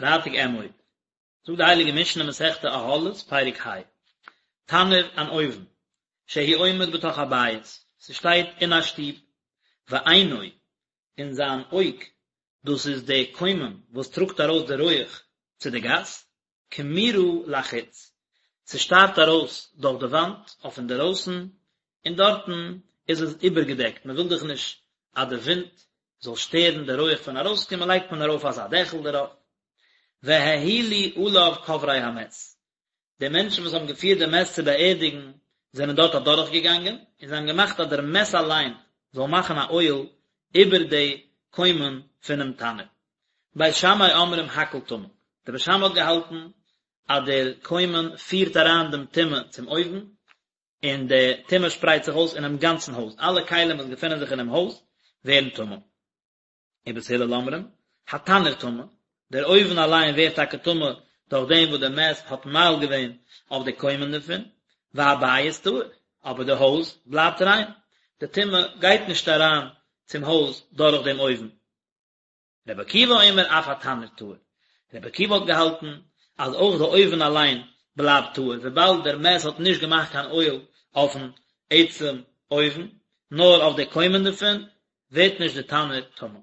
פרייטאג אמור. זאגט די הייליגע משנה מסכת אהלות פרק ה, תנור אן אויוון, שהוא עומד בתוך הבית, ס'שטייט אין א שטוב, ועינו, און זיין אויג, דאס איז די קוימען וואס טראגט ארויס די רויעך צו די גאס, קמורה לחוץ, ס'שטארט ארויס דורך די וואנט אויף אינדערויסן, און דארטן איז עס איבערגעדעקט, מען וויל דאך נישט אז די ווינט זאל שטערן די רויעך פון ארויסקומען לייגט מען ארויף אזא דעכל דערויף. והאהילו עליו קוברי המת, די מענטשן וואס האבן געפירט די מת צו באערדיגן זענען דארט אדורך געגאנגען, און זיי האבן געמאכט אז דער מת אליין זאל מאכן א אוהל איבער די קוימען פונעם תנור. בית שמאי אומרים הכל טמא, דער בית שמאי האט געהאלטן אז דער קוימען פירט אריין דעם טומאה צום אויוון, און די טומאה שפרייט זיך אויס אינעם גאנצן הויז, אלע כלים וואס געפינען זיך אינעם הויז ווערן טמא. ובית הלל אומרים, התנור טמא, דער אויוון אליין ווערט טאקע טמא דורך דעם וואס דער מת האט מאהיל געווען אויף די קוימען דערפון, והבית טהור, אבער די הויז בלייבט ריין, די טומאה גייט נישט אריין צום הויז דורך דעם אויוון. רבי עקיבא אומר אף התנור טהור, רבי עקיבא האט געהאלטן אז אויך די אויוון אליין בלייבט טהור וויבאלד דער מת האט נישט געמאכט קיין אוהל אויפן עצם אויוון נאר אויף די קוימען דערפון, ווערט נישט די תנור טמא.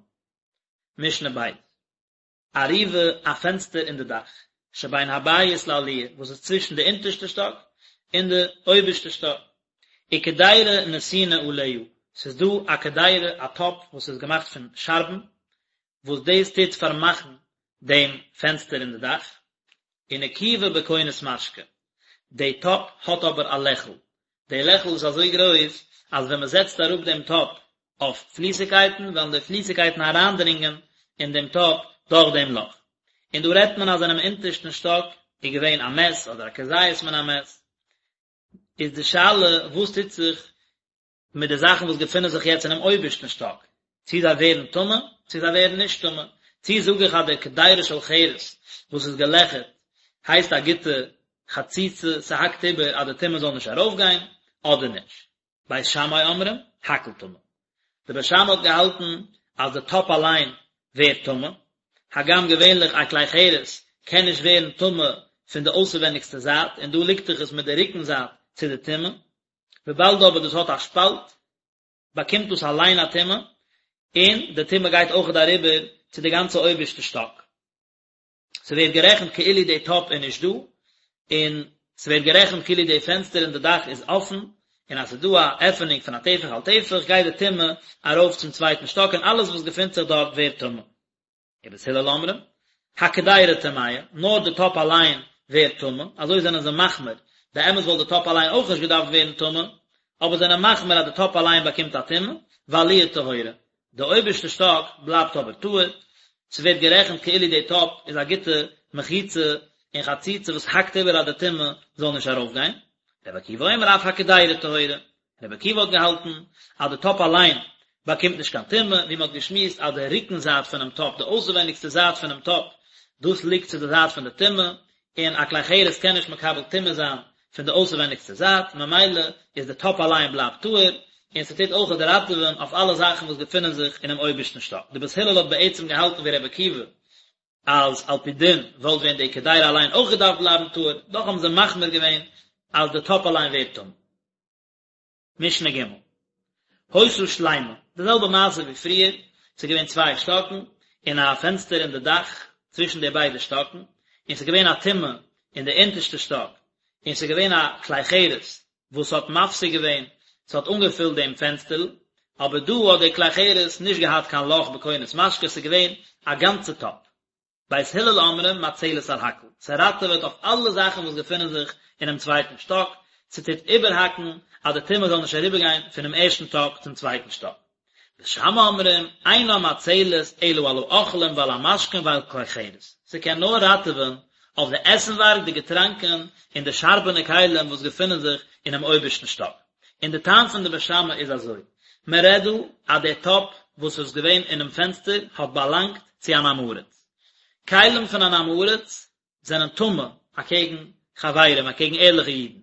משנה ב'. ארובה א פענסטער אין די דאך, שבין הבית לעליה, וואס איז צווישן די אונטערשטע שטאק און די אויבערשטע שטאק, וקדירה נתונה עליה, ס'איז דא א קדירה א טאפ וואס איז געמאכט פון שארבן, וואס דאס טוט פארמאכן דעם פענסטער אין די דאך, ונקובה בכונס משקה, די טאפ האט אבער א לעכל, די לעכל איז אזוי גרויס אז ווען מען זעצט אראפ דעם טאפ אויף פליסיגקייטן וועלן די פליסיגקייטן אריינדרינגען אין דעם טאפ דורך דעם לאך. און דא רעדט מען אז אינעם אונטערשטן שטאק איז געווען א מת אדער א כזית מן המת, איז די שאלה וואס טוט זיך מיט די זאכן וואס געפינען זיך יעצט אינעם אויבערשטן שטאק, צי זיי ווערן טמא, צי זיי ווערן נישט טמא, צי זאג איך אז די קדירה של חרס וואס איז געלעכערט הייסט א גוטע חציצה, ס'האקט איבער אז די טומאה זאל נישט ארויפגיין, אדער נישט. בית שמאי אומרים, הכל טמא. די בית שמאי האט געהאלטן אז די טאפ אליין ווערט טמא, הגם געווענליך א כלי חרס קען נישט ווערן טמא פון די אויסערווענדיגסטע זייט, און דא ליגט דאך עס מיט די רוקן זייט צו די טומאה, וויבאלד אבער דאס האט א שפאלט, באקומט דאס אליין א טומאה, און די טומאה גייט אויכעט אריבער צו די גאנצע אויבערשטע שטאק. ס'ווערט גערעכנט כאילו די טאפ איז נישט דא, און ס'ווערט גערעכנט כאילו די פענסטער אין די דאך איז אפן, און אז ס'איז דא א עפענונג פון א טפח על טפח גייט די טומאה ארויף צום צווייטן שטאק און אלעס וואס געפינט זיך דארט ווערט טמא. ובית הלל אומרים, הקדירה טמאה, נאר די טאפ אליין ווערט טמא, אזוי זענען זיי מחמיר, באמת וואלט די טאפ אליין אויך נישט געדארפט ווערן טמא, אבער זענען מחמיר אז די טאפ אליין באקומט א טומאה, והעליה טהורה, די אויבערשטע שטאק בלייבט אבער טהור, ס'ווערט גערעכנט כאילו די טאפ איז א גוטע מחיצה און חציצה וואס האקט איבער אז די טומאה זאל נישט ארויפגיין. רבי עקיבא אומר אף הקדירה טהורה, רבי עקיבא האט געהאלטן אז די טאפ אליין באקומט נישט קיין טומאה, ווי מ'האט געשמועסט אז די רוקן זייט פונעם טאפ, די אויסעווייניגסטע זייט פונעם טאפ, דאס ליגט צו די זייט פון די טומאה, און א כלי חרס קען נישט מקבל טומאה זיין פון די אויסערווייניגסטע זייט, ממילא איז די טאפ אליין בלייבט טהור, און ס'טוט אויכעט ראטעווען אויף אלע זאכן וואס געפינען זיך אינעם אויבערשטן שטאק. די בית הלל האט בעצם געהאלטן ווי רבי עקיבא אז על פי דין וואלט ווען די קדירה אליין אויך געדארפט בלייבן טהור, דאך האבן זיי מחמיר געווען אז די טאפ אליין ווערט טמא. משנה ג' היתה שלימה, די זעלבע מעשה ווי פריער, ס'איז געווען צוויי שטאקן, און א פענסטער אין די דאך צווישן די ביידע שטאקן, און ס'איז געווען א טומאה אין די אונטערשטע שטאק, און ס'איז געווען א כלי חרס וואס האט מפסיק געווען, ס'האט אנגעפילט דעם פענסטערל, אבער דא האט די כלי חרס נישט געהאט קיין לאך בכונס משקה, ס'איז געווען א גאנצע טאפ. בית הלל אומרים מצלת על הכל, ס'ראטעוועט אויף אלע זאכן וואס געפינען זיך אינעם צווייטן שטאק, ס'טוט איבערהאקן אז די טומאה זאל נישט אריבערגיין פונעם ערשטן שטאק צום צווייטן שטאק. בית שמאי אומרים, אינה מצלת אלא על האוכלים ועל המשקין ועל כלי חרס, ס'קען נאר ראטעווען אויף די עסנווארג, די געטראנקען, און די שארבענע כלים וואס געפינען זיך אינעם אויבערשטן שטאק. און די טעם פון די בית שמאי איז אזוי, מען רעדט דא אז דער טאפ וואס איז געווען אינעם פענסטער האט באלאנגט צו אן עם הארץ. כלים פון אן עם הארץ זענען טמא אקעגן חברים, אקעגן ערליכע אידן.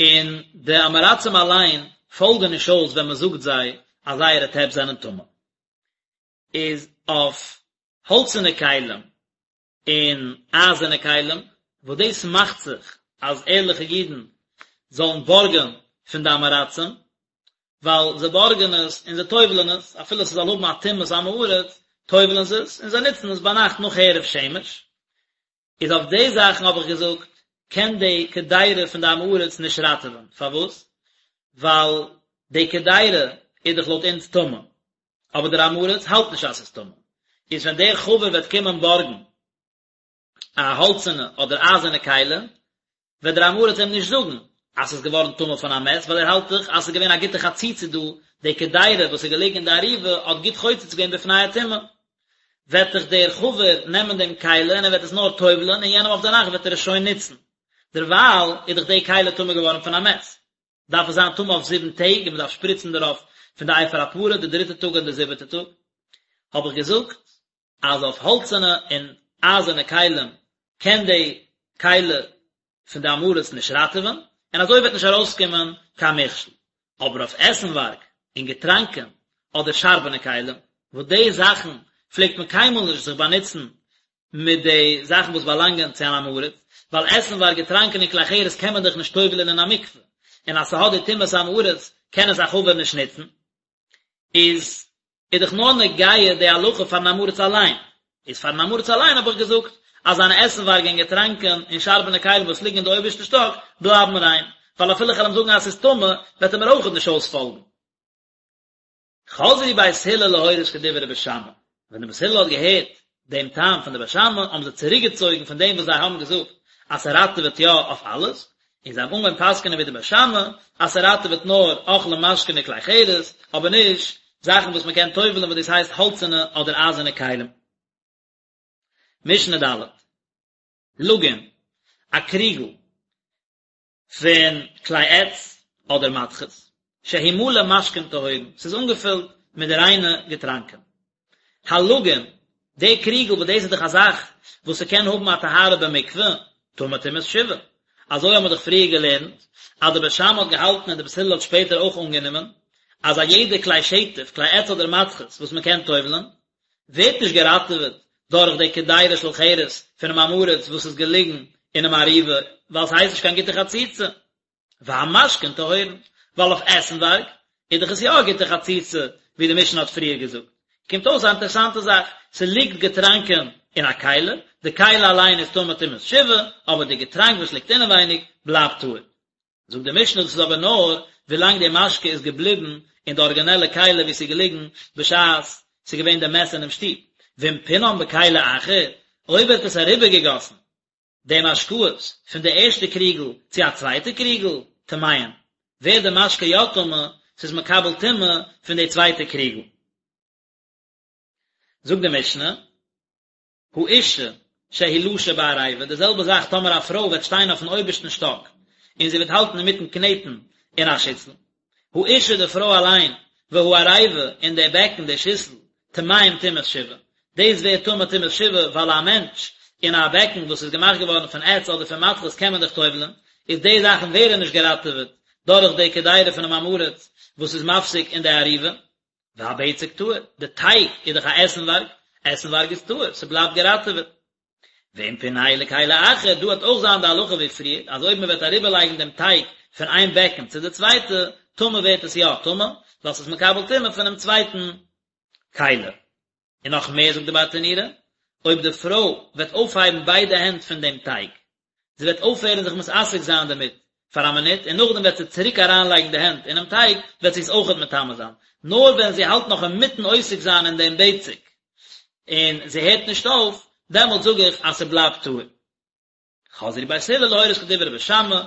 און די עם הארצים אליין פאלגן נישט אויס ווען מען זאגט זיי אז זייערע טעפ זענען טמא. איז אויף. האלצערנע כלים און אייזערנע כלים, וואס דאס מאכט זיך אז ערליכע אידן זאלן בארגען פון די עם הארצים, ווייל זיי בארגען עס און זיי טובל'ען עס, אפילו ס'זאל האבן א טומאת עם הארץ, טובל'ען זיי עס און זיי נוצן עס ביינאכט נאך הערב שמש. איז אויף די זאכן האב איך געזאגט, קען די קדירה פון די עם הארץ נישט ראטעווען, פארוואס? ווייל די קדירה איז דאך לויט אונז טמא, אבער דער עם הארץ האלט נישט אז ס'איז טמא, איז ווען דער חבר וועט קומען בארגן א האלצענע אדער אייזערנע כלי, וועט דער עם הארץ אים נישט זאגן אז ס'איז געווארן טמא פון א מת, ווייל ער האלט דאך אז ס'איז געווען א גוטע חציצה דא, די קדירה וואס איז געלעגן אין די אריבה האט גוט חוצץ געווען בפני הטומאה. וועט דאך דער חבר נעמען דעם כלי און ער וועט עס נאר טובל'ען און יענעם אויף די נאכט וועט ער עס שוין נוצן. דערווייל איז דאך די כלי טמא געווארן פון א מת. דארף עס זיין טמא אויף זיבן טעג און מען דארף שפריצן דערויף פון די אפר הפרה די דריטע טאג און די זיבעטע טאג. האב איך געזאגט אז אויף האלצערנע און אייזערנע כלים קען די כלי פון די עם הארץ נישט ראטעווען, און אזוי וועט נישט ארויסקומען קיין מכשול. אבער אויף עסנווארג און געטראנקען אדער שארבענע כלים, וואס די זאכן פלעגט מען קיינמאל נישט זיך באנוצן מיט די זאכן וואס באלאנגען צו אן עם הארץ, ווייל עסנווארג, געטראנקען און כלי חרס קען מען דאך נישט טובל'ען אין א מקווה, און אז ס'האט די טומאת עם הארץ קען עס א חבר נישט נוצן. איז איז דאך נאר נוגע די הלכה פארן עם הארץ אליין, איז פארן עם הארץ אליין האב איך געזאגט אז זיינע עסנווארג און געטראנקען און שארבענע כלים וואס ליגן אין די אויבערשטע שטאק בלייבן ריין, ווייל אפילו איך וועל אים זאגן אז ס'איז טמא וועט ער מיר אויכעט נישט אויספאלגן. חזרו בית הלל להורות כדברי בית שמאי, ווען די בית הלל האט געהערט דעם טעם פון די בית שמאי האבן זיי צוריקגעצויגן פון דעם וואס זיי האבן געזאגט אז ס'ראטעוועט יא אויף אלעס, און זיי האבן אנגעהויבן פסק'נען ווי די בית שמאי אז ס'ראטעוועט נאר אוכלים משקין און כלי חרס, אבער נישט זאכן וואס מ'קען טובל'ען וואס דאס הייסט האלצערנע אדער אייזערנע כלים. משנה ד'. לגין, א קריגל פון כלי עץ אדער מתכות, שהוא מלא משקין טהורין, ס'איז אנגעפילט מיט די ריינע געטראנקען. הלגין, די קריגל וואס דאס איז דאך א זאך וואס ס'קען האבן א טהרה במקווה, טמא טומאת שבעה. אזוי האבן מיר דאך פריער געלערנט, אז די בית שמאי האט געהאלטן און די בית הלל האט שפעטער אויך אנגענומען, אז א יעדע כלי שטף, כלי עץ אדער מתכות, וואס מ'קען טובל'ן, ווערט נישט געראטעוועט דורך די קדירה של חרס פונעם עם הארץ וואס איז געליגן אינעם אריבה, ווייל ס'הייסט נישט קיין גוטע חציצה. והמשקין טהורין, ווייל אויף עסנווארג איז דאך עס יא א גוטע חציצה, ווי די משנה האט פריער געזאגט. קומט אויס א אינטערעסאנטע זאך, ס'ליגט געטראנקען אין א כלי, די כלי אליין איז טמא טומאת שבעה, אבער די געטראנק וואס ליגט אינעווייניג בלייבט טהור. זאגט די משנה דאס איז אבער נאר ווילאנג די משקה איז געבליבן אין די ארגינעלע כלי ווי ס'איז געליגן בשעת ס'איז געווען די מת אינעם שטוב, ואם פינם בכלי אחר, אויב ער האט עס אריבערגעגאסן די משקאות פון די ערשטע קריגל צו א צווייטע קריגל, טמאין, ווערט די משקה יא טמא, ס'איז מקבל טומאה פון די צווייטע קריגל. זאגט די משנה. האשה שהיא לשה בעריבה, די זעלבע זאך טאמער א פרוי וועט שטיין אויפן אויבערשטן שטאק און זי וועט האלטן אינמיטן קנעטן אין א שיסל, האשה די פרוי אליין, והעריבה און די בעקן די שיסל, טמאים טומאת שבעה, דאס ווערט טמא טומאת שבעה ווייל א מענטש אין א בעקן וואס איז געמאכט געווארן פון עץ אדער פון מתכות קען מען דאך טובל'ן, איז די זאכן ווערן נישט געראטעוועט דורך די קדירה פונעם עם הארץ וואס איז מפסיק אין די אריבה. והבצק טהור, די טייג איז דאך א עסנווארג, עסנווארג איז טהור, ס'בלייבט געראטעוועט. ואם פינהו לכלי אחר, דא וועט אויך זיין די הלכה ווי פריער, אז אויב מ'וועט אריבערלייגן דעם טייג פון איין בעקן צו די צווייטע, טמא ווערט עס יא טמא, ווייל ס'איז מקבל טומאה פונעם צווייטן כלי. און נאך מער זאגט די ברטנורא, אויב די פרוי וועט אויפהייבן ביידע הענט פון דעם טייג, זי וועט אויפהערן זיך מתעסק זיין דערמיט פאר א מינוט, און נאכדעם וועט זי צוריק אריינלייגן די הענט אינעם טייג, וועט זי עס אויכעט מטמא זיין. נאר ווען זי האלט נאך אינמיטן עוסק זיין אין דעם בצק, און זי הערט נישט אויף, דעמאלט זאג איך אז ס'בלייבט טהור. חזרו בית הלל להורות כדברי בית שמאי,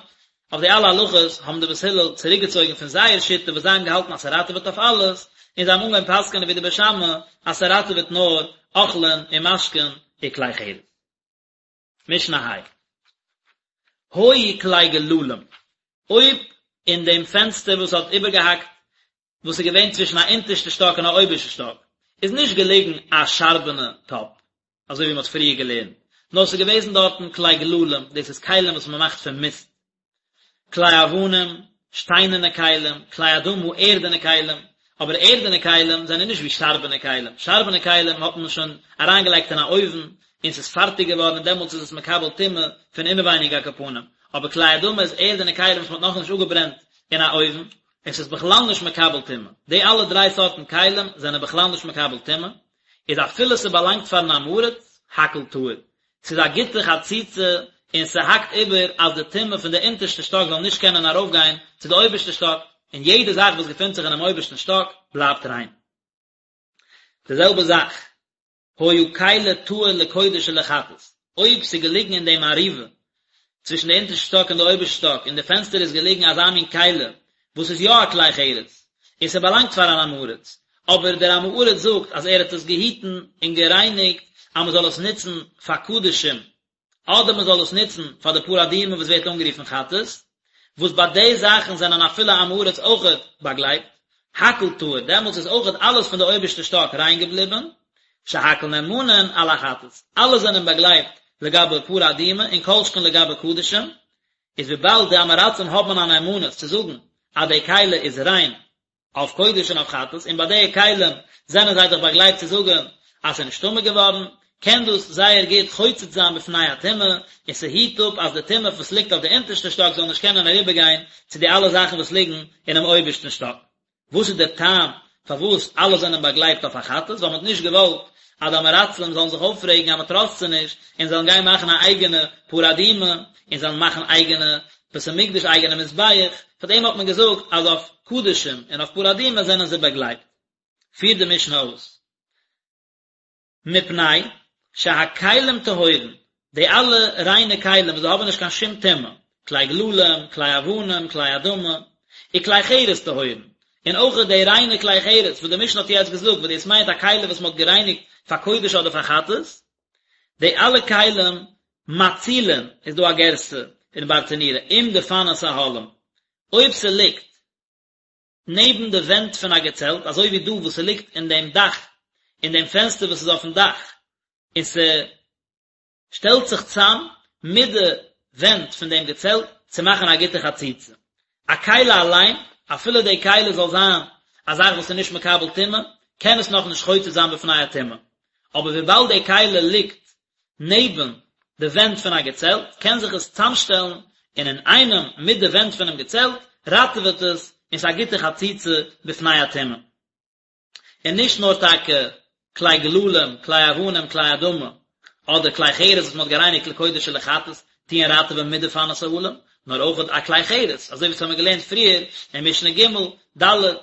אויף די אלע הלכות האבן די בית הלל צוריקגעצויגן פון זייער שיטה וואס זיי האבן געהאלטן אז ס'ראטעוועט אויף אלעס, און זיי האבן אנגעהויבן פסק'ענען ווי די בית שמאי אז ס'ראטעוועט נאר אוכלין און משקין וכלי חרס. משנה ה'. היו כלי גללים, אויב אין דעם פענסטער וואס האט איבערגעהאקט וואס איז געווען צווישן א אונטערשטע שטאק און א אויבערשטע שטאק, איז נישט געלעגן א שארבענע טאפ, אזוי ווי מען האט פריער געלערנט, נאר עס איז געוועזן דארטן כלי גללים, דאס איז כלים וואס מען מאכט פון מיסט, כלי אבנים, שטיינערנע כלים, כלי אדמה, ערדענע כלים, אבער ערדענע כלים זענען נישט ווי שארבענע כלים, שארבענע כלים האט מען שוין אריינגעלייגט אין א אויוון און ס'איז פארטיג געווארן און דעמאלטס איז עס מקבל טומאה פון אינעווייניג על כל פנים, אבער כלי אדמה איז ערדענע כלים וואס מ'האט נאכנישט אפגעברענט אין א אויוון, און ס'איז בכלל נישט מקבל טומאה, די אלע דריי סארטן כלים זענען בכלל נישט מקבל טומאה, איז אפילו ס'באלאנגט פארן עם הארץ, הכל טהור, ס'איז א גוטע חציצה און ס'האקט איבער אז די טומאה פון די אונטערשטע שטאק זאל נישט קענען ארויפגיין צו די אויבערשטע שטאק, און יעדע זאך וואס געפינט זיך אינעם אויבערשטן שטאק בלייבט ריין. די זעלבע זאך, היה כלי טהור לקודש ולחטאת, אויב ס'איז געליגן אין דעם ארובה צווישן די אונטערשטע שטאק און די אויבערשטע שטאק אין די פענסטער איז געליגן אזא מין כלי וואס איז יא א כלי חרס און ס'באלאנגט פאר אן עם הארץ, אבער דער עם הארץ זאגט אז ער האט עס געהיטן און גערייניגט אז מ'זאל עס נוצן פאר קדשים אדער מ'זאל עס נוצן פאר די פרה אדומה וואס ווערט אנגערופן חטאת, וואס ביי די זאכן זענען אפילו עם הארץ אויכעט באגלייבט, הכל טהור, דעמאלטס איז אויכעט אלעס פון די אויבערשטע שטאק ריין געבליבן, שהכל נאמנין על החטאת, אלע זענען באגלייבט לגבי פרה אדומה און כל שכן לגבי קדשים, איז וויבאלד די עם הארצים האבן א נאמנות צו זאגן אז די כלי איז ריין אויף קודש און אויף חטאת, און ביי די כלים זענען זיי דאך באגלייבט צו זאגן אז ס'איז נישט טמא געווארן, קען דאס זייער גוט חוצץ זיין בפני הטומאה, און ס'היט אפ אז די טומאה וואס ליגט אויף די אונטערשטע שטאק זאל נישט קענען אריבערגיין צו די אלע זאכן וואס ליגן אינעם אויבערשטן שטאק. וואס איז דער טעם פארוואס אלע זענען באגלייבט אויף א חטאת? ווייל מען האט נישט געוואלט אז די עם הארצים זאלן זיך אויפרעגן אז מען טראסט זיי נישט, און זאלן גיין מאכן א אייגענע פרה אדומה, און זאלן מאכן אייגענע בית המקדש אייגענע מזבח, פאר דעם האט מען געזאגט אז אויף קדשים און אויף פרה אדומה זענען זיי באגלייבט. פירט די משנה אויס. מפני שהכלים טהורין, די אלע ריינע כלים וואס זיי האבן נישט קיין שום טומאה, כלי גללים, כלי אבנים, כלי אדמה, וכלי חרס טהורין, און אויך די ריינע כלי חרס וואס די משנה האט יעצט געזאגט וואס דאס מיינט א כלי וואס מען האט גערייניגט פאר קודש אדער פאר חטאת, די אלע כלים מצילין איז דא א גירסא אין ברטנורא עם דפנות אהלים, אויב ס'ליגט נעבן די ווענט פון א געצעלט, אזוי ווי דא וואס ס'ליגט אין דעם דאך, אין דעם פענסטער וואס איז אויפן דאך, און ס'שטעלט זיך צאם מיט די ווענט פון דעם געצעלט צו מאכן א גוטע חציצה. א כלי אליין, אפילו די כלי זאל זיין א זאך וואס איז נישט מקבל טומאה, קען עס נאכנישט חוצץ זיין בפני הטומאה. אבער וויבאלד די כלי ליגט נעבן די ווענט פון א געצעלט, קען זיך עס צאמשטעלן און אינאיינעם מיט די ווענט פונעם געצעלט ראטעוועט עס און ס'איז א גוטע חציצה בפני הטומאה. און נישט נאר טאקע כלי גללים, כלי אבנים, כלי אדמה, אדער כלי חרס וואס מ'האט גערייניגט לקודש ולחטאת, טוען ראטעווען מיט דפנות אהלים, נאר אויך א כלי חרס, אזוי ווי עס האבן מיר געלערנט פריער אין משנה ג', ד',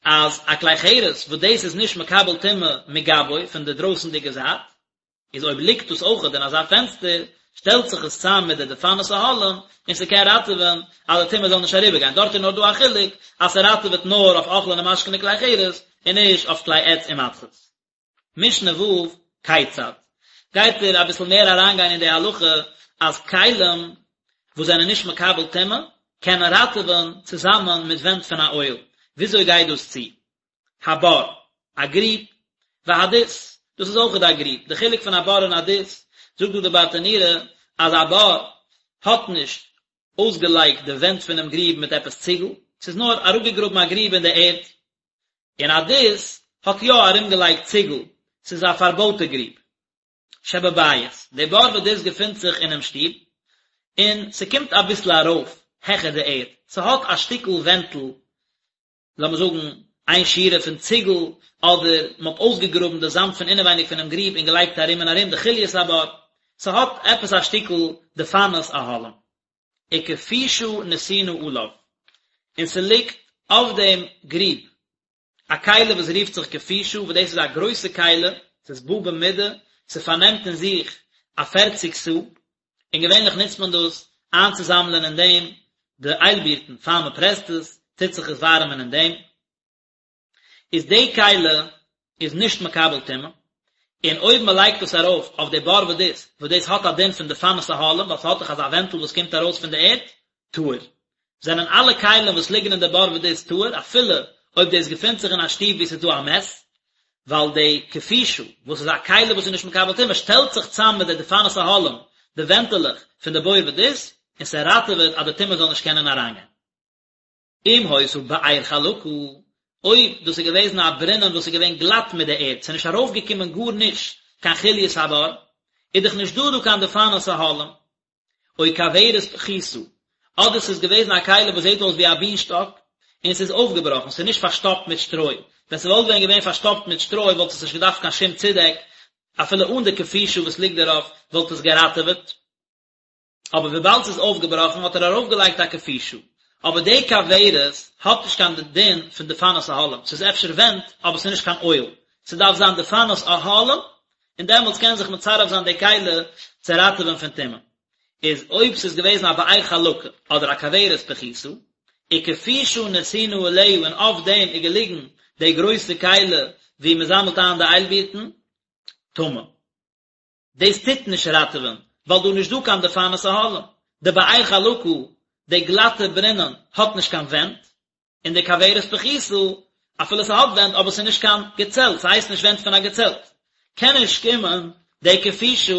אז א כלי חרס וואס דאס איז נישט מקבל טומאה מגבו פון די דרויסנדיגע זייט, איז אויב ליגט דאס אויכעט אין אזא פענסטער, שטעלט זיך עס צאם מיט די דפנות אהלים, און ס'קען ראטעווען אז די טומאה זאל נישט אריבערגיין, דארט איז נאר דא א חילוק אז ס'ראטעוועט נאר אויף אוכלין און משקין און כלי חרס, און נישט אויף כלי עץ און מתכות. משנה ו', כיצד? גייט ער אביסל מער אריינגיין אין די הלכה אז כלים וואס זענען נישט מקבל טומאה קענען ראטעווען צוזאמען מיט ווענט פון א אוהל, וויאזוי גייט דאס צו? הבור, א גריב, והדות, דאס איז אויכעט א גריב, די חילוק פון א בור און א דות, זאגט דא די ברטנורא אז א בור האט נישט אויסגעלייגט די ווענט פונעם גריב מיט עפעס ציגל, ס'איז נאר אראפגעגראבן א גריב אין די ערד, און א דות האט יא ארומגעלייגט ציגל, ס'איז א פארבויטע גריב. שבבית, די בור ודות געפינט זיך אינעם שטוב, און ס'קומט אביסל ארויף העכער די ערד, ס'האט א שטיקל ווענטל לאמיר זאגן איין שורה פון ציגל, אדער מען האט אויסגעגראבן די זאמד פון אינעווייניג פונעם גריב און געלייגט ארום און ארום די חוליות הבור, ס'האט עפעס א שטיקל דפנות אהלים. וכפישה נתונה עליו, און ס'ליגט אויף דעם גריב א כלי וואס רופט זיך כפישה, וואס דאס איז א גרויסע כלי, ס'איז בא במידה, ס'פארנעמט אין זיך א פערציג סאה, און געווענליך נוצט מען דאס איינצוזאמלען אין דעם די איילבירטן פאר מען פרעסט עס, טוט זיך עס ווארעמען אין דעם, איז די כלי איז נישט מקבל טומאה, און אויב מען לייגט עס ארויף אויף די בור ודות, וואס דאס האט א דין פון דפנות אהלים, ווייל ס'האט דאך אזא ווענטל וואס קומט ארויס פון די ערד, טהור. זענען אלע כלים וואס ליגן אין די בור ודות טהור, אפילו אויב דאס געפינט זיך אין א שטוב וואו ס'איז דא א מת, ווייל די כפישה, וואס איז א כלי וואס איז נישט מקבל טומאה, שטעלט זיך צאם מיט די דפנות אהלים, די ווענטעלעך פון די בור ודות, און ס'ראטעוועט אז די טומאה זאל נישט קענען אריינגיין. אם היתה באר חלקה. אויב דאס איז געוועזן א ברינען וואס איז געווען גלאט מיט די ערד, ס'איז נישט ארויפגעקומען גארנישט קיין חוליות הבור, איז דאך נישט דא דא קיין דפנות אהלים. או כוורת פחותה, אדער ס'איז געוועזן א כלי וואס זעט אויס ווי א בינשטאק, און ס'איז אויפגעבראכן, ס'איז נישט פארשטאפט מיט שטרוי, ווען ס'וואלט ווען געווען פארשטאפט מיט שטרוי וואלט עס נישט געדארפט קיין שום צודעק, אפילו אן די כפישה וואס ליגט דערויף וואלט עס געראטעוועט. אבער וויבאלד ס'איז אויפגעבראכן האט ער ארויפגעלייגט א כפישה. אבער די כוורת האט נישט קיין דין פון דפנות אהלים, ס'איז אפשר ווענט אבער ס'איז נישט קיין אוהל, ס'דארף זיין דפנות אהלים און דעמאלטס קען זיך מצרף זיין די כלי צו ראטעווען פון טומאה. איז אויב ס'איז געוועזן א באר חלקה אדער א כוורת פחותה, וכפישה נתונה עליה און אויף דעם איז געליגן די גרויסע כלי וואו מ'זאמלט איין די איילבירטן, טמא. דאס טוט נישט ראטעווען, ווייל דא איז נישט דא קיין דפנות אהלים. די באר חלקה, די גלאטע ברינען, האט נישט קיין ווענט, און די כוורת פחותה, אפילו ס'האט ווענט, אבער ס'איז נישט קיין געצעלט, ס'הייסט נישט ווענט פון א געצעלט, קען נישט קומען די כפישה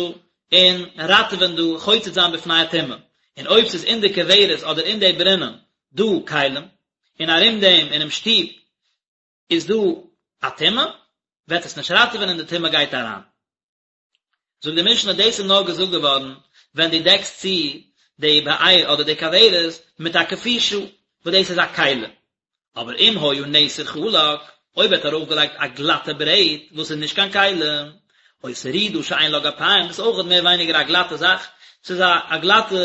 און ראטעווען דא, חוצץ זיין בפני הטומאה. און אויב ס'איז אין די כוורת אדער אין די ברינען דא כלים, און ארום דעם אינעם שטוב איז דא א טומאה, וועט עס נישט ראטעווען און די טומאה גייט אריין. זאגט די משנה דאס איז נאר געזאגט געווארן ווען דו דעקסט צו די באר אדער די כוורת מיט א כפישה וואס דאס איז א כלי, אבער אם היה נסר חלק, אויב ער האט ארויפגעלייגט א גלאטע ברעט וואס איז נישט קיין כלי, או סרידה שאין לה גפיים, דאס איז אויכעט מער ווייניגער א גלאטע זאך, ס'איז א א גלאטע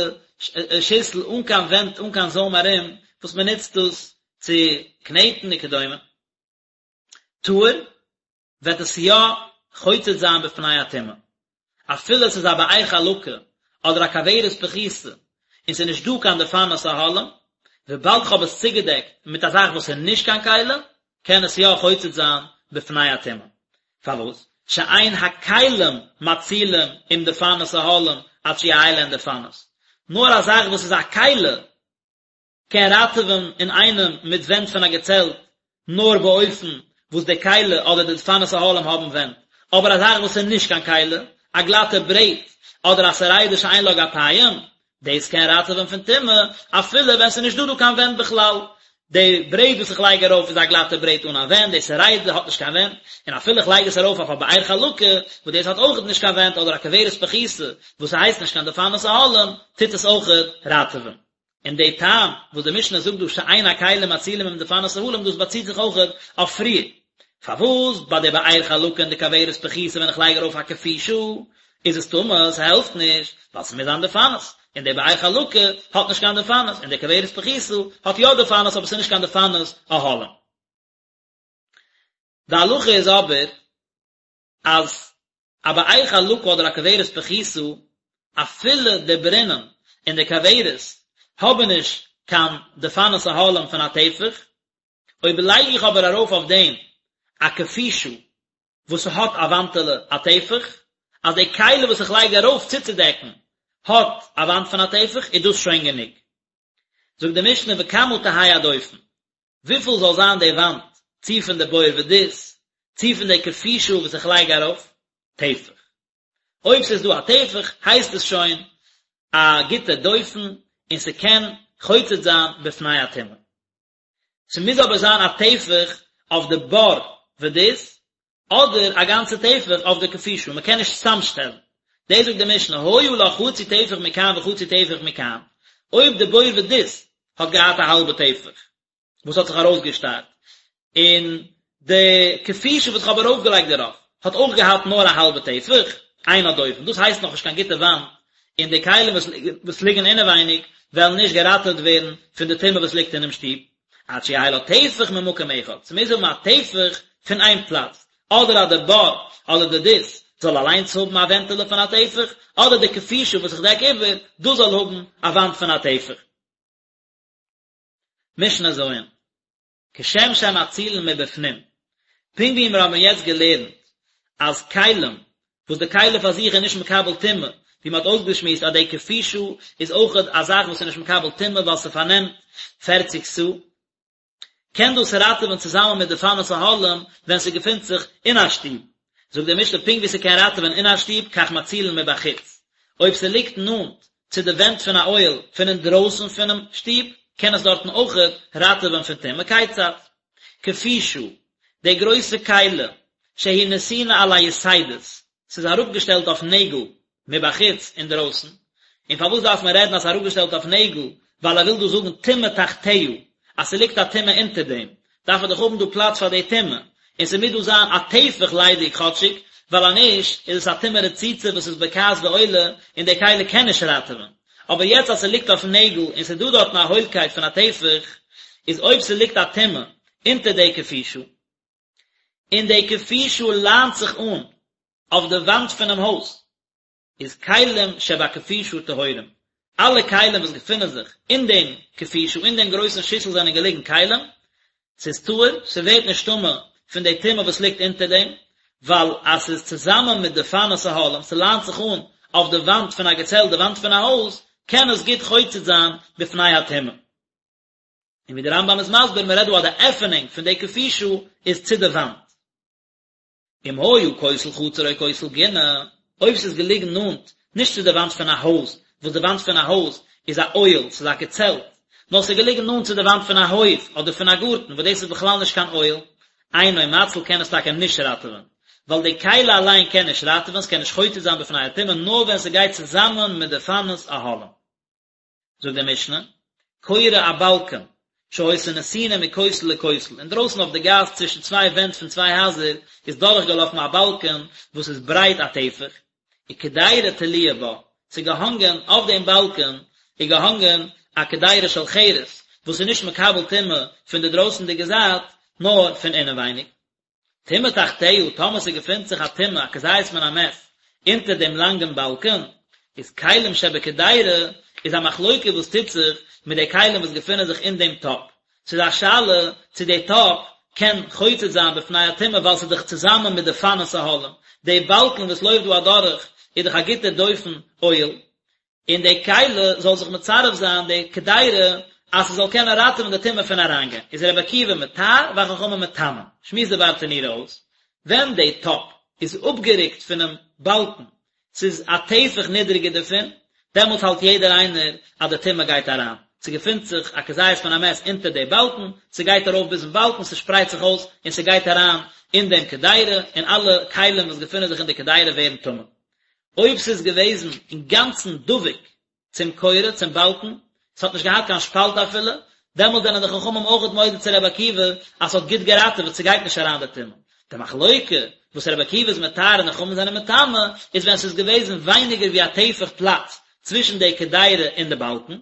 שיסל אן קיין ווענט אן קיין זוים ארום, וואס מען נוצט דאס צו קנעטן וכדומה. טהור וועט עס יא חוצץ זיין בפני הטומאה, אפילו עס איז א באר חלקה אדער א כוורת פחותה און ס'איז נישט דא קיין דפנות אהלים, וויבאלד כ'האב עס צוגעדעקט מיט א זאך וואס איז נישט קיין כלי, קען עס יא חוצץ זיין בפני הטומאה. פארוואס? שאין הכלים מצילים עם דפנות אהלים עד שיהא להן דפנות, נאר א זאך וואס איז א כלי קען ראטעווען אינאיינעם מיט ווענט פון א געצעלט נאר באופן וואס די כלי אדער די דפנות אהלים האבן ווענט, אבער א זאך וואס איז נישט קיין כלי, א גלאטע ברעט אדער א סרידה שאין לה גפיים, דאס קען ראטעווען פון טומאה אפילו ווען ס'איז נישט דא דא קיין ווענט בכלל. די ברעט וואס איך לייג ארויף איז א גלאטע ברעט אן א ווענט, די סרידה האט נישט קיין ווענט, און אפילו איך לייג עס ארויף אויף א באר חלקה וואס דאס האט אויכעט נישט קיין ווענט אדער א כוורת פחותה וואס ס'הייסט נישט קיין דפנות אהלים, טוט עס אויכעט ראטעווען. און די טעם וואס די משנה זאגט דא שאין הכלים מצילים עם דפנות אהלים דאס באציט זיך אויכעט אויף פריער, פארוואס ביי די באר חלקה און די כוורת פחותה ווען איך לייג ארויף א כפישה איז עס טמא, ס'העלפט נישט, ווייל ס'מוז זיין דפנות, און די באר חלקה האט נישט קיין דפנות, און די כוורת פחותה האט יא דפנות אבער ס'איז נישט קיין דפנות אהלים. די הלכה איז אבער אז א באר חלקה אדער א כוורת פחותה, אפילו די ברינען און די כוורת האבן נישט קיין דפנות אהלים פון א טפח, אויב לייג איך אבער ארויף אויף דעם א כפישה וואס ס'האט א וואנטעלע א טפח, אז די כלי וואס איך לייג ארויף צוצודעקן האט א וואנט פון א טפח, איז דאס שוין גענוג. זאגט די משנה וכמה תהא הדופן, וויפיל זאל זיין די וואנט, צי פון די בור ודות, צי פון די כפישה וואס איך לייג ארויף, טפח. אויב ס'איז דא א טפח, הייסט עס שוין א גוטע דופן, און ס'קען חוצץ זיין בפני הטומאה. ס'מוז אבער זיין א טפח אויף די בור ודות, אדער א גאנצע טפח אויף די כפישה, מ'קען נישט צוזאמשטעלן. דאס זאגט די משנה, היה לה חצי טפח מכאן וחצי טפח מכאן, אויב די בור ודות האט געהאט א האלבע טפח וואס האט זיך ארויסגעשטארט, און די כפישה וואס איך האב ארויפגעלייגט דערויף האט אויך געהאט נאר א האלבע טפח, אין הדופן, דאס הייסט נאכנישט קיין גוטע וואנט, און די כלים וואס ליגן אינעווייניג וועלן נישט געראטעוועט ווערן פון די טומאה וואס ליגט אינעם שטוב, עד שיהא לה טפח ממקום אחד, ס'מוז האבן א טפח פון איין פלאץ, אדער אז די בור אדער די דות זאל אליינס האבן א ווענטעלע פון א טפח, אדער די כפישה וואס איך דעק איבער, דאס זאל האבן א וואנט פון א טפח. משנה ז'. כשם שמצילין מבפנים, פונקט ווי מיר האבן יעצט געלערנט אז כלים, וואס די כלי פאר זיך איז נישט מקבל טומאה, ווי מען האט אויסגעשמועסט אז די כפישה איז אויכעט א זאך וואס איז נישט מקבל טומאה ווייל ס'פארנעמט פערציג סאה, קען דאס ראטעווען צוזאמען מיט דפנות אהלים ווען ס'געפינט זיך אין א שטוב. זאגט די משנה פונקט ווי ס'קען ראטעווען אין א שטוב כך מצילין מבחוץ, אויב ס'ליגט נאנט צו די ווענט פון א אוהל פון אינדרויסן פונעם שטוב, קען עס דארטן אויכעט ראטעווען פון טומאה, כיצד? כפישה, די גרויסע כלי, שהיא נתונה על היתדות, ס'איז אראפגעשטעלט אויף נעגל, מבחוץ, אינדרויסן. און פארוואס דארף מען רעדן אז ס'איז אראפגעשטעלט אויף נעגל, ווייל ער וויל דא זאגן טומאה תחתיה, אז ס'ליגט א טומאה אונטער דעם, דארף ער דאך האבן דא פלאץ פאר די טומאה, און ס'מוז דא זיין א טפח ליידיג כאטשיג, ווייל אז נישט איז עס א טומאה רצוצה וואס איז בוקעת ועולה, און די כלי קען נישט ראטעווען. אבער יעצט אז ס'ליגט אויף נעגל און ס'איז דא דארטן א הוילקייט פון א טפח, איז אויב ס'ליגט א טומאה אונטער די כפישה, און די כפישה ליינט זיך אן אויף די וואנט פונעם הויז, איז כלים שבכפישה טהורים, אלע כלים וואס געפינען זיך אין דעם כפישה, אין דעם גרויסן שיסל זענען געליגן כלים, ס'איז טהור, ס'ווערט נישט טמא פון די טומאה וואס ליגט אונטער דעם, ווייל אז ס'איז צוזאמען מיט דפנות אהלים, ס'ליינט זיך אן אויף די וואנט פון א געצעלט, די וואנט פון א הויז, קען עס גוט חוצץ זיין בפני הטומאה. און ווי דער רמב"ם איז מסביר, מ'רעדט דא אז די עפענונג פון די כפישה איז צו די וואנט. אם היה כותל חצר או כותל גינה, אויב ס'איז געליגן נאנט, נישט צו די וואנט פון א הויז, וואס די וואנט פון א הויז איז א אוהל, ס'איז א געצעלט, נאר ס'איז געליגן נאנט צו די וואנט פון א הויף אדער פון א גארטן, וואס דאס איז בכלל נישט קיין אוהל, אינו מציל קען עס טאקע נישט ראטעווען, ווייל די כלי אליין קען נישט ראטעווען, ס'קען נישט חוצץ זיין בפני הטומאה נאר ווען ס'גייט צוזאמען מיט דפנות אהלים. זאגט די משנה, קורה א באלקען, שהיתה נתונה מכותל לכותל, אינדרויסן אויף די גאס צווישן צוויי ווענט פון צוויי הייזער איז דורכגעלאפן א באלקען וואס איז ברייט א טפח, וקדירה תלויה בה, ס'איז געהאנגען אויף דעם באלקען איז געהאנגען א קדירה של חרס, וואס איז נישט מקבל טומאה פון די דרויסנדיגע זייט, נאר פון אינעווייניג. טומאה תחתיה, טאמער ס'געפינט זיך א טומאה, א כזית מן המת, אונטער דעם לאנגן באלקן, איז כלים שבקדירה, איז א מחלוקה וואס טוט זיך מיט די כלים וואס געפינען זיך אין דעם טאפ. ס'איז א שאלה צו די טאפ קען חוצץ זיין בפני הטומאה ווייל ס'איז דאך צוזאמען מיט דפנות אהלים. די באלקן וואס לויפט דא אדורך איז דאך א גוטע דופן אוהל, און די כלי זאל זיך מצרף זיין די קדירה אז ס'זאל קענען ראטעווען די טומאה פון אריינגיין, איז רבי עקיבא מטהר והחכמים מטמאין, שמועסט די ברטנורא אויס, ווען די טאפ איז אפגערוקט פונעם באלקן, ס'איז א טפח נידריגער דערפון, דעמאלטס האלט יעדער איינער אז די טומאה גייט אריין, ס'געפינט זיך א כזית מן המת אונטער די באלקן, ס'גייט ארויף ביזן באלקן, ס'שפרייט זיך אויס און ס'גייט אריין אין דעם קדירה, און אלע כלים וואס געפינען זיך אין די קדירה ווערן טמא. אויב ס'איז געוועזן אינגאנצן דבוק צום קורה, צום באלקן, ס'האט נישט געהאט קיין שפאלט אפילו, דעמאלט זענען די חכמים אויכעט מודה צו רבי עקיבא אז ס'האט גוט געראטעוועט, ס'גייט נישט אריין די טומאה. די מחלוקה וואס רבי עקיבא איז מטהר און די חכמים זענען מטמא, איז ווען ס'איז געוועזן ווייניגער ווי א טפח פלאץ צווישן די קדירה און די באלקן.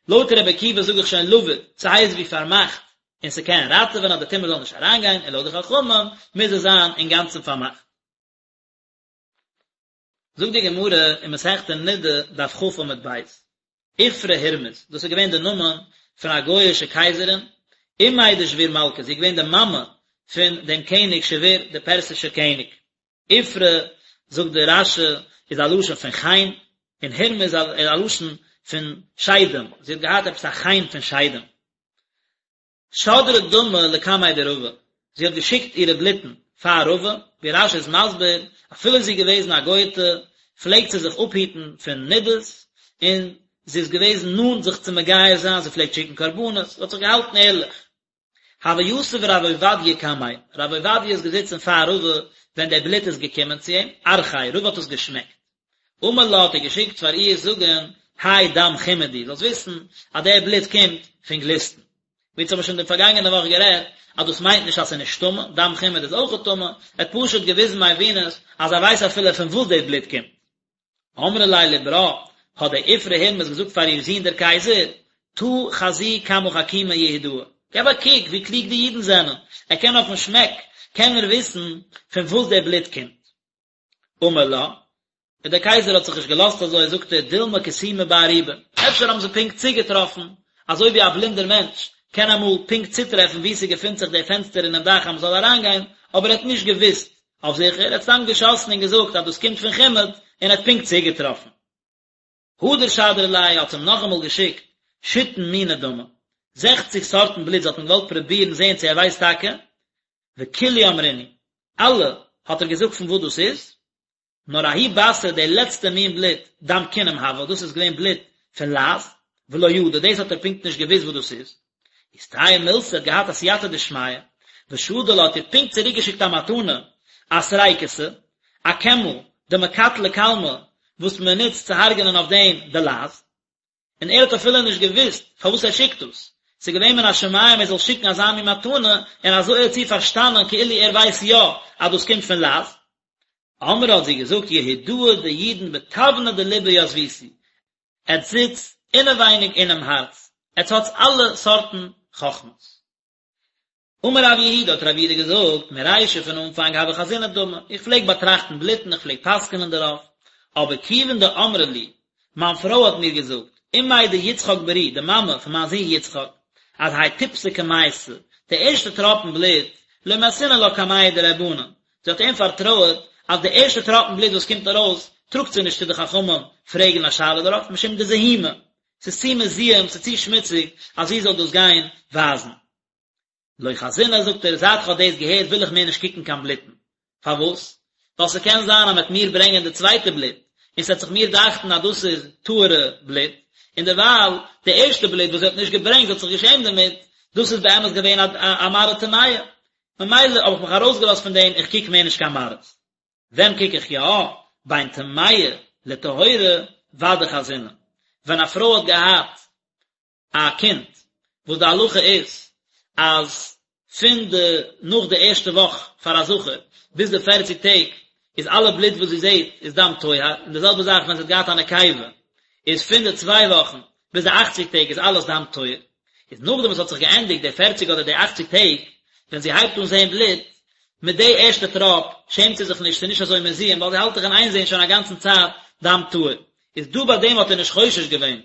לויט רבי עקיבא זאג איך שוין לבוד, ס'הייסט ווי פארמאכט, און ס'קען ראטעווען אז די טומאה זאל נישט אריינגיין, און לויט די חכמים מוז עס זיין אינגאנצן פארמאכט. זאגט די גמרא אין מסכת נדה דף כ עמוד ב', איפרא הורמיז, דאס איז געווען די נאמען פון א גוי'אישע קייזערין, אימיה דשביר מלכא, זי איז געווען די מאמע פון דעם קעניג שביר, דער פערסישער קעניג. איפרא, זאגט דער רש"י, איז א לשון פון חן, און הורמיז איז א לשון פון שדים, זי האט געהאט עפעס א חן פון שדים. שדרה דמא לקמיה דרבא, זי האט געשיקט אירע בלוטן פאר רבא, ווי רש"י איז מסביר, אפילו זי איז געוועזן א גוי'טע, פלעגט זי זיך אפהיטן פון נדות, און זי איז געוועזן נאנט זיך צו מגייר זיין, זי פלעגט שיקן קרבנות, זי האט זיך געהאלטן ערליך. הוה יתיב רב עובדיה קמיה, רב עובדיה איז געזיצן פאר רבא ווען דער בלוט איז געקומען צו אים, ארחיה, רבא האט עס געשמעקט. אמר לה האט ער געשיקט פאר איר זאגן, האי דם חימוד הוא, זאלסט וויסן אז דער בלוט קומט פון גליסטן. ווי אונז האבן שוין די פארגאנגענע וואך גערעדט, אז דאס מיינט נישט אז ס'איז נישט טמא, דם חימוד איז אויכעט טמא, ער האט פשוט געוויזן מבינות אז ער ווייסט אפילו פון וואס דאס בלוט קומט. אמרה ליה לברה, האט די איפרא הורמיז געזאגט פאר איר זון דער קייזער, תא חזי כמה חכימי יהודאי, געב א קוק ווי קלוג די אידן זענען, ער קען אויפן שמעק קען ער וויסן פון וואס דער בלוט קומט. אמר לה, און דער קייזער האט זיך נישט געלאזט אזוי, זאגט ער, דילמא כסומי בארובה, אפשר האבן זיי פונקט צוגעטראפן, אזוי ווי א בלינדער מענטש קען אמאל פונקט צוטרעפן וואו ס'געפינט זיך דער פענסטער אינעם דאך אז מ'זאל אריינגיין, אבער ער האט נישט געוואוסט אויף זיכער, ער האט סתם געשאסן און געזאגט אז דאס קומט פון חימוד, און ער האט פונקט צוגעטראפן. הדר שדרה ליה האט אים נאכאמאל געשיקט שיתין מיני דמא, זעכציג סארטן בלוט, זי האט אים געוואלט פרובירן זען צו ער ווייסט טאקע, וכולהו אמרינהו, אלע האט ער געזאגט פון וואס דאס איז, נאר ההוא בתרא די לעצטע מין בלוט, דם כינים הוה, דאס איז געווען בלוט פון לייז, ולא ידע, דאס האט ער פונקט נישט געוואוסט וואס דאס איז. איסתייע מילתא האט געהאט א סייעתא דשמיא. ושדר לה האט איר פונקט צוריקגעשיקט א מתנה, א סריקותא, א קעמל, דמקטלא כלמי, וואס מען נוצט צו הרג'נען אויף דעם די לייז. און ער האט אפילו נישט געוואוסט פארוואס ער שיקט דאס, ס'איז געווען מן השמים ער זאל שיקן אזא מין מתנה, און אזוי האט זי פארשטאנען כאילו ער ווייסט יא אז דאס קומט פון לייז. אמרה האט זי געזאגט יהודאי די אידן בתבנא דליבא יתביתו, עטס זיצט אינעווייניג אינעם הארץ, עטס האטס אלע סארטן חכמות. אמר רב יהודה, האט רב יהודה געזאגט, מרישא פון אנפאנג הוה חזינא דמא, איך פלעג באטראכטן בלוטן, איך פלעג פסק'נען דערויף, אבער כיוון דאמרה לי, מיין פרוי האט מיר געזאגט, אמיה דיצחק ברי, די מאמע פון מיין זון יצחק, אז האי טיפתא קמייתא, די ערשטע טראפן בלוט, לא מייתינא לה קמיה דרבנן, זי האט אים פארטרויעט אז די ערשטע טראפן בלוט וואס קומט ארויס, טראגט זי נישט צו די חכמים פרעגן א שאלה דערויף, משום דזיהומא, ס'איז צו מזוהם, ס'איז צו שמוציג, אז זי זאל דאס גיין ווייזן. לא חזינא, זאגט ער, זייט כ'האב דאס געהערט וויל איך מער נישט קוקן קיין בלוטן. פארוואס? ווייל ס'קען זיין אז מ'וועט מיר ברענגען די צווייטע בלוט, און ס'וועט זיך מיר דאכטן אז דאס איז טהור'ע בלוט, און דערווייל די ערשטע בלוט וואס זי האט נישט געברענגט, זי האט זיך געשעמט דערמיט, דאס איז באמת געווען א מראה טמאה. ממילא האב איך מיך ארויסגעלאזט פון דעם, איך קוק מער נישט קיין מראות. ווען קוק איך יא? בין טמאה לטהורה ודאי חזינא. ווען א פרוי האט געהאט א קינד, וואס די הלכה איז אז פון די נאך די ערשטע וואך פאר א זכר ביז די פערציג טעג איז אלע בלוט וואס זי זעט איז דם טוהר, און די זעלבע זאך ווען זי האט געהאט א נקבה איז פון די צוויי וואכן ביז די אכציג טעג איז אלעס דם טוהר, איז נאכדעם וואס האט זיך געענדיגט די פערציג אדער די אכציג טעג, ווען זי הייבט אן זען בלוט, מיט די ערשטע טראפ שעמט זי זיך נישט, ס'איז נישט אזוי מזוהם, ווייל זי האלט דאך אין איין זען שוין א גאנצן צייט דם טהור, איז דא ביי דעם האט ער נישט חושש געווען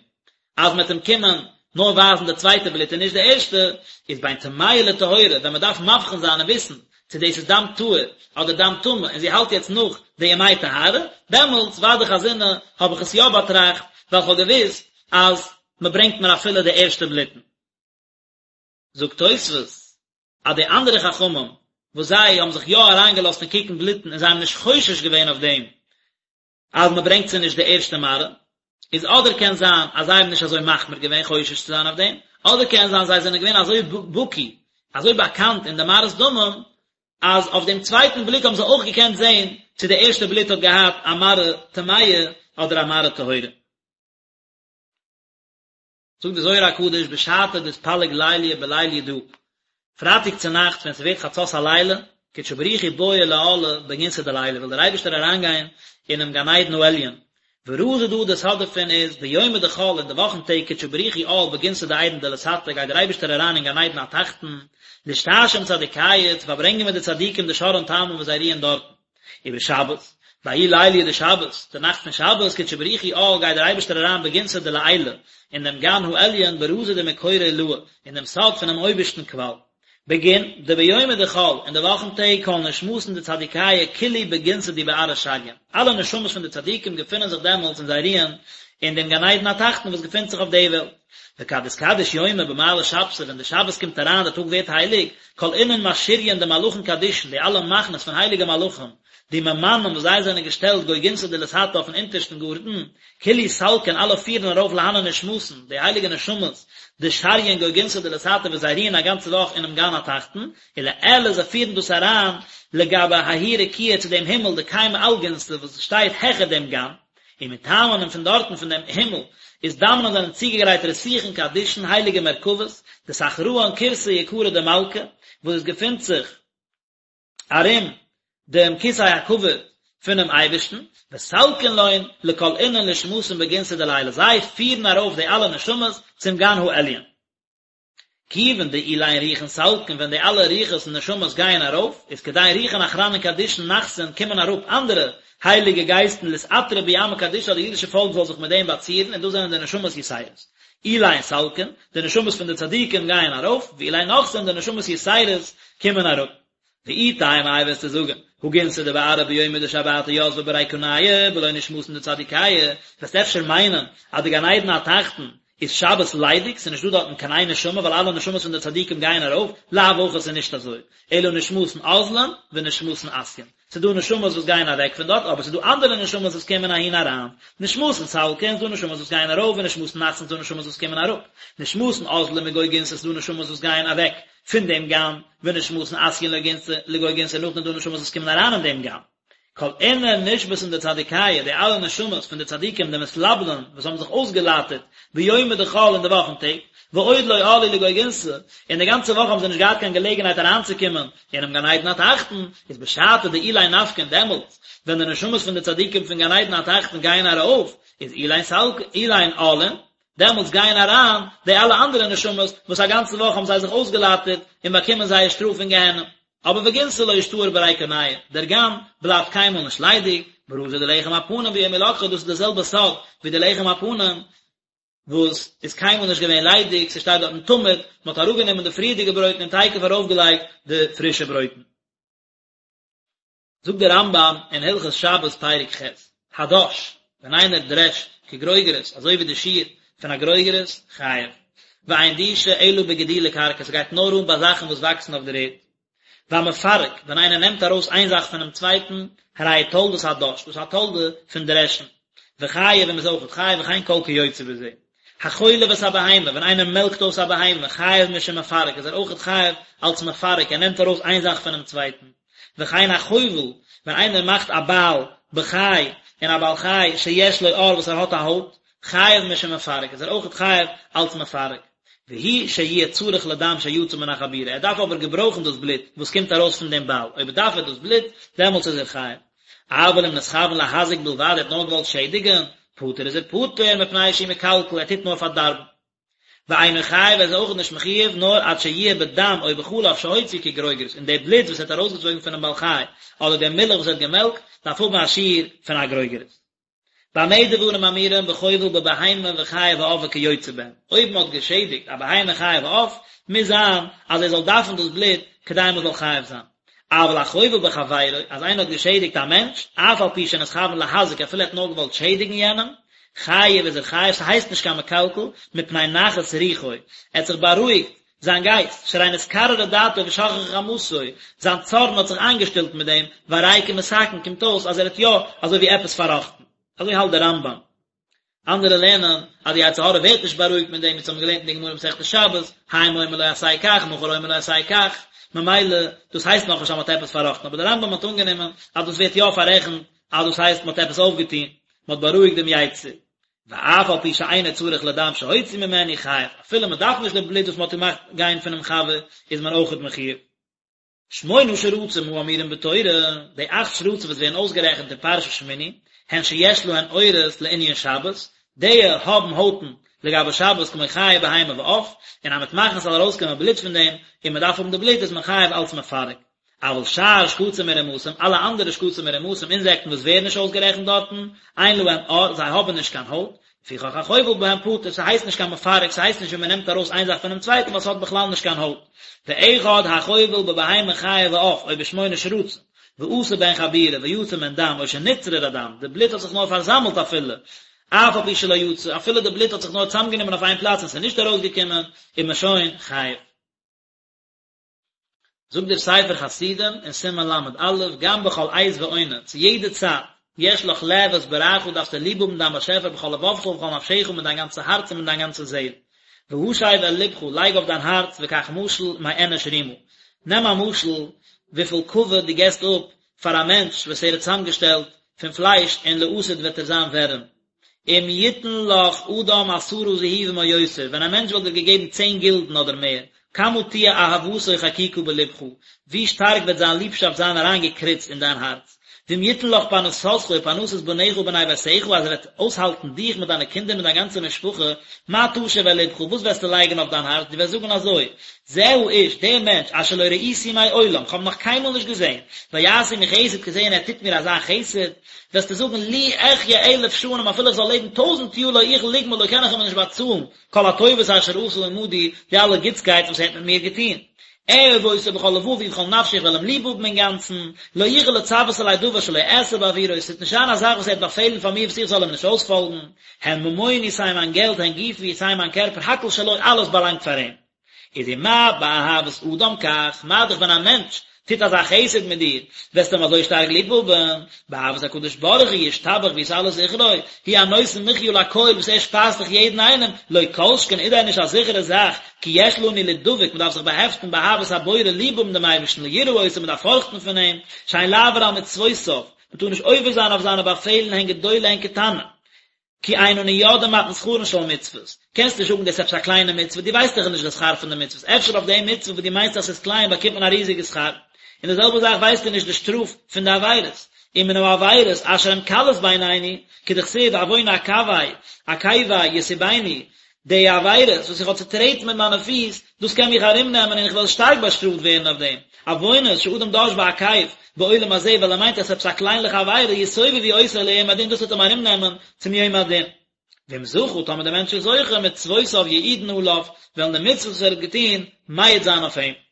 אז מ'וועט אים קומען נאר ווייזן די צווייטע בלוט און נישט די ערשטע, איז בין טמאה לטהורה, ווען מ'דארף מבחין זיין און וויסן צו דאס איז דם טהור אדער דם טמא און זי האלט יעצט נאך די ימי טהרה, דעמאלטס ודאי חזינא האב איך עס יא באטראכט, ווייל כ'האב געוואוסט אז מ'ברענגט מיר אפילו די ערשטע בלוטן. זאגט תוספות אז די אנדערע חכמים וואס זיי האבן זיך יא אריינגעלאזט אין קוקן בלוטן און זיי האבן נישט חושש געווען אויף דעם אז מען ברענגט זיי נישט די ערשטע מראה, איז אדער קען זיין אז זיי האבן נישט אזוי מחמיר געווען חושש צו זיין אויף דעם, אדער קען זיין זיי זענען געווען אזוי בקי, אזוי באקאנט אין די מראות דמים, אז אויף דעם צווייטן בליק האבן זיי אויך געקענט זען צו די ערשטע בלוט האט געהאט א מראה טמאה אדער א מראה טהורה. זאגט די זוהר הקדוש בשעתא דאתפלג ליליא בליליא דא, פרייטאג צו נאכטס ווען ס'ווערט חצות הלילה, קודשא בריך הוא בעי לאעלא בגנתא דלעילא וויל דער אייבערשטער אריינגיין אינעם גן עדן העליון, ורזא דא די סוד דערפון איז, ביומא דחול אין די וואכן טעג קודשא בריך הוא עאל בגנתא דעדן דלתתא גייט דער אייבערשטער אריין אין גן עדן התחתון, לאשתעשא עם צדיקיא צו פארברענגען מיט די צדיקים דשרעין תמן וואס זיי רוען דארטן. ובשבת, בההוא ליליא דשבת, די נאכט פון שבת, קודשא בריך הוא עאל גייט דער אייבערשטער אריין בגנתא דלעילא, אין דעם גן העליון ברזא דמקורא עילאה, אין דעם סוד פונעם אויבערשטן קוואל. בגין דביומא דחול, אין די וואכן טעג כל נשמתין דצדיקיא כולהו בגנתא די בארעא שריין, אלע נשמות פון די צדיקים געפינען זיך דעמאלטס און זיי רוען אין דעם גן עדן התחתון וואס געפינט זיך אויף די וועלט. וכד אתקדש יומא במעלי שבתא ווען די שבת קומט אריין די טאג ווערט הייליג, כל אינון משריין דמלאכין קדישין די אלע מחנות פון הייליגע מלאכים, דממנן וואס זיי זענען געשטעלט גו גנתא דלתתא אויפן אונטערשטן גארטן, כולהו סלקין אלע פירן ארויף להנן נשמתין, די הייליגע נשמות, דשריין גו גנתא דלתתא וואס זיי רוען א גאנצע וואך אינעם גן התחתון, ולעילא זיי פירן דאס אריין לגבי ההוא רקיעא צו דעם הימל דקיימא על גנתא וואס שטייט העכער דעם גן. ומתמן און פון דארטן פון דעם הימל אזדמנן זענען צוגעגרייט רתיכין קדישין הייליגע מרכבות, דתחראן כורסא יקרא דמלכא, וואס עס געפינט זיך ארום דעם כסא הכבוד פונעם אייבערשטן, וסלקין לון לכל אינון נשמתין בגנתא דלעילא, זיי פירן ארויף די אלע נשמות צום גן העליון. כיוון דאלין רוחין סלקין ווען די אלע רוחות און נשמות גייען ארויף, איז כדין רוחין אחרנין קדישין נחתין קומען אראפ אנדערע הייליגע גייסטן לאתעטרא בהו עמא קדישא אז די אידישע פאלק זאל זיך מיט דעם באצירן און דאס זענען די נשמות יתירות. אלין סלקין, די נשמות פון די צדיקים גייען ארויף, ואלין נחתין, די נשמות יתירות קומען אראפ. ואי תימא איי וועסטו זאגען, הא גנתא דבארעא ביומא דשבתא יתבא בריקניא בלא נשמתין דצדיקיא, וועסט אפשר מיינען אז די גן עדן התחתון איז שבת ליידיג, ס'איז נישט דא דארטן קיין איין נשמה ווייל אלע נשמות פון די צדיקים גייען ארויף, לאו הכי ס'איז נישט אזוי, אלא נשמתין אזלין ונשמתין אתיין. ס'איז דא נשמות וואס גייען אוועק פון דארט, אבער ס'איז דא אנדערע נשמות וואס קומען אהין אריין. נשמתין סלקין, ס'איז דא נשמות וואס גייען ארויף, ונשמתין נחתין, ס'איז דא נשמות וואס קומען אראפ. נשמתין אזלין מגו גנתא, ס'איז דא נשמות וואס גייען אוועק פון דעם גן, ונשמתין אתיין לגו גנתא, נאכדעם איז דא נשמות וואס קומען אריין אין דעם גן. כל אינון נשמתין דצדיקיא, די אלע נשמות פון די צדיקים דמתלבנין וואס האבן זיך אויסגעלייטערט ביומא דחול אין די וואכן טעג, ועוד לא עאלו לגו גנתא, און די גאנצע וואך האבן זיי נישט געהאט קיין געלעגנהייט אריינצוקומען אינעם גן עדן התחתון, איז בשעתא דאלין נפקין דעמאלטס ווען די נשמות פון די צדיקים פון גן עדן התחתון גייען ארויף, איז אלין סלקין, אלין עאלין, דעמאלטס גייען אריין די אלע אנדערע נשמות וואס א גאנצע וואך האבן זיי זיך אויסגעלייטערט און באקומען זייער שטראף אין גיהנום. אבער וגנתא לא אשתאר בריקניא, דער גן בלייבט קיינמאל נישט ליידיג, ברזא דלחם הפנים ביום הלקחו, דאס איז די זעלבע סוד ווי די לחם הפנים וואס איז קיינמאל נישט געווען ליידיג, ס'שטייט דארטן תמיד, מען האט אראפגענומען די פריערדיגע ברויטן און תיכף ארויפגעלייגט די פרישע ברויטן. זאגט דער רמב"ם אין הלכות שבת פרק ח', הדש, ווען איינער דרעשט כגרוגרת, אזוי ווי די שיעור פון א גרוגרת, חייב. ואין דישה אלא בגידולי קרקע, ס'גייט נאר אן ביי זאכן וואס וואקסן אויף דער ערד. והמפרק, ווען איינער נעמט ארויס איין זאך פונעם צווייטן, הרי הוא תולדת הדש, דאס איז א תולדה פון דרעשן. וחייב און מ'איז אויכעט חייב וכן כל כיוצא בזה. החולב את הבהמה, ווען איינער מעלקט אויס א בהמה, חייב משום מפרק, איז ער אויכעט חייב אלס מפרק, ער נעמט ארויס איין זאך פונעם צווייטן. וכן החובל, ווען איינער מאכט א בייל בחי אין א בעל חי שיש לו עור וואס ער האט א הויט, חייב משום מפרק, איז ער אויכעט חייב אלס מפרק. והוא שיהיה צריך לדם שיצא מן החבורה, ער דארף אבער געברויכן דאס בלוט וואס קומט ארויס פון דעם בייל, אויב דארף ער דאס בלוט, דעמאלטס איז ער חייב. אבל אם נתכוון להזיק בלבד, ער האט נאר געוואלט שעדיגן, פטור איז ער פטור, מפני שהוא מקלקל, ער טוט נאר פארדארבן. ואינו חייב ער איז אויך נישט מחויב נאר עד שיהיה בדם או בחלב שהוציא כגרוגרת און די בלוט וואס ער האט ארויסגעצויגן פונעם בעל חי אדער די מילך וואס ער האט געמעלקט דארף האבן א שיעור פון א גרוגרת. במה דברים אמורים בחובל בבהמה וחיה ועוף וכיוצא בהם, אויב מען האט געשעדיגט א בהמה חיה ועוף מוז זיין אז ער זאל דארפן דאס בלוט כדי מען זאל חייב זיין. אבל החובל בחבירו, אז איינער האט געשעדיגט א מענטש, אף על פי שנתכוון להזיק אפילו ער האט נאר געוואלט שעדיגן יענעם, חייב איז ער חייב, ס'הייסט נישט קיין מקלקל, מפני נחת רוחו, ער האט זיך בארואיגט זיין גייסט, שהרי נתקררה דעתו ושככה חמתו, זיין צארן האט זיך איינגעשטילט מיט דעם, והרי כמתקן, קומט אויס אז ער האט יא אזוי ווי עפעס פארראכטן. אזוי האלט דער רמב"ם. אנדערע לערנען אז די יצר הרע ווערט נישט בארואיגט מיט דעם, ווי אונז האבן געלערנט אין די גמרא מסכת שבת, היום אומר לו עשה כך, מחר אומר לו עשה כך, ממילא דאס הייסט נאכנישט אז מען האט עפעס פארראכטן, אבער דער רמב"ם האט אנגענומען אז דאס ווערט יא פאררעכנט אז דאס הייסט מען האט עפעס אויפגעטון, מען האט בארואיגט דעם יצר. ואף על פי שאינו צריך לדם שהוציא ממנו חייב, אפילו מען דארף נישט די בלוט וואס מען האט געמאכט גיין פונעם חבר, איז מען אויכעט מחויב. שמונה שרצים האמורים בתורה, די אכט שרצים וואס ווערן אויסגערעכנט אין פרשת שמיני, הן שיש להן עורות לענין שבת, די האבן הויטן לגבי שבת כמו חיה בהמה ועוף, און אז מ'וועט מאכן ס'זאל ארויסקומען בלוט פון דעם, און מ'דארף האבן די בלוט איז מען חייב אלץ מפרק. אבל שאר שקצים ורמשים, אלע אנדערע שקצים און רמשים, אינזעקטן וואס ווערן נישט אויסגערעכנט דארטן, אין להם עור, זיי האבן נישט קיין הויט, לפיכך החובל בהם פטור, ס'הייסט נישט קיין מפרק, ס'הייסט נישט ווי מ'נעמט ארויס איין זאך פונעם צווייטן ווייל ס'האט בכלל נישט קיין הויט. ואחד החובל בבהמה חיה ועוף, או בשמונה שרצים, ועשה בהן חבורה, ויצא מהן דם, או שנצרר הדם, די בלוט האט זיך נאר פארזאמלט אפילו, אף על פי שלא יצא, אפילו די בלוט האט זיך נאר צוזאמגענומען אויף איין פלאץ און ס'איז נישט ארויסגעקומען, איז מען שוין חייב. זאגט דער ספר חסידים אין סימן ל"א, גם בכל עת ועונה, צו יעדע צייט, יש לך לאהוב את בוראך דארפסטו ליב האבן דיין באשעפער בכל לבבך ובכל נפשך מיט דיין גאנצע הארץ און מיט דיין גאנצע זעהל. והשב אל לבך, לייג אויף דיין הארץ וקח משל מאנוש רימה. נעם א משל וויפיל כבוד דו געסט אפ פאר א מענטש וואס ער האט צוזאמגעשטעלט פון פלייש און לעתיד וועט ער זיין ווערים. אם יתן לך אדם עשרה זהובים או יותר, ווען א מענטש וואלט דיר געגעבן צען גילדן אדער מער, כמה תהיה אהבתו חקוקה בלבך, ווי שטארק וועט זיין ליבשאפט זיין אריינגעקריצט אין דיין הארץ. ואם יתן לך פרנסתך ופרנסת בניך ובני ביתך, אז ער וועט אויסהאלטן דיך מיט דיינע קינדער מיט דיין גאנצע משפחה, מה תשיב אל לבך, וואס וועסטו לייגן אויף דיין הארץ, דו וועסט זאגן אזוי, זה האיש, דער מענטש, אשר לא ראיתי מעולם, כ'האב נאך קיינמאל נישט געזען, ויעש עמי חסד כזה און ער טוט מיר אזא חסד, וועסטו זאגן לו אחיה אלף שנים אפילו איך זאל לעבן טויזנט יאר לא אוכל לגמול לו קען איך אים נישט באצאלן כל הטובות אשר עשה עמדי די אלע גוטסקייט וואס ער האט מיט מיר געטון. אהוב אותו בכל לבבי ובכל נפשי איך וועל אים ליב האבן אינגאנצן, לא אוכל לצוות עלי דבר שלא אעשה בעבורו עס וועט נישט זיין א זאך וואס ער וועט באפעלן פאר מיר וואס איך זאל אים נישט אויספאלגן, הן ממוני סיי מיין געלט הן גופי סיי מיין קערפער הכל שלו אלעס באלאנגט פאר אים. איז ומה באהבת אדם כך, מה דאך ווען א מענטש טוט אזא חסד מיט דיר, וועסטו אים אזוי שטארק ליב האבן, באהבת הקדוש ברוך הוא ישתבח ויתעלה זכרו, הוא הנותן מחיה לכל וואס ער שפייזט דאך יעדן איינעם, לא כל שכן איז דען נישט א זיכערע זאך, כי יש לנו לידבק, מען דארף זיך באהעפטן באהבת הבורא ליב האבן דעם אייבערשטן ליראה אותו מען דארף פארכטן פון אים, שאין לעבור על מצוותיו, מען טאר נישט עובר זיין אויף זיינע באפעלן הן גדולה הן קטנה. כי אין אנו יודעים מתן שכרן של מצוות, קענסט נישט זאגן דאס איז עפעס א קליינע מצוה, דו ווייסט דאך נישט די שכר פון די מצוות, אפשר אויף די מצוה וואס דו מיינסט אז ס'איז קליין באקומט מען א ריזיגע שכר, און די זעלבע זאך ווייסטו נישט די שטראף פון די עבירות, ומן העבירות אשר הן קלות בעינינו, כדכתיב עון עקבי עקבי יסובני, די עבירות וואס איך האב צוטרעטן מיט מיינע פיס, דאס קען מיך ארומנעמען און איך וועל שטארק באשטראפט ווערן אויף דעם. עוונות שאדם דש בעקב בעולם הזה ווייל ער מיינט אז עפעס א קליינליכע עבירה יסובבו אותו ליום הדין דאס וועט אים ארומנעמען צום יום הדין. ואם זכה טאמער דער מענטש איז זוכה מצוותיו יעידון עליו וועלן די מצוות וואס ער האט געטון מעיד זיין אויף אים.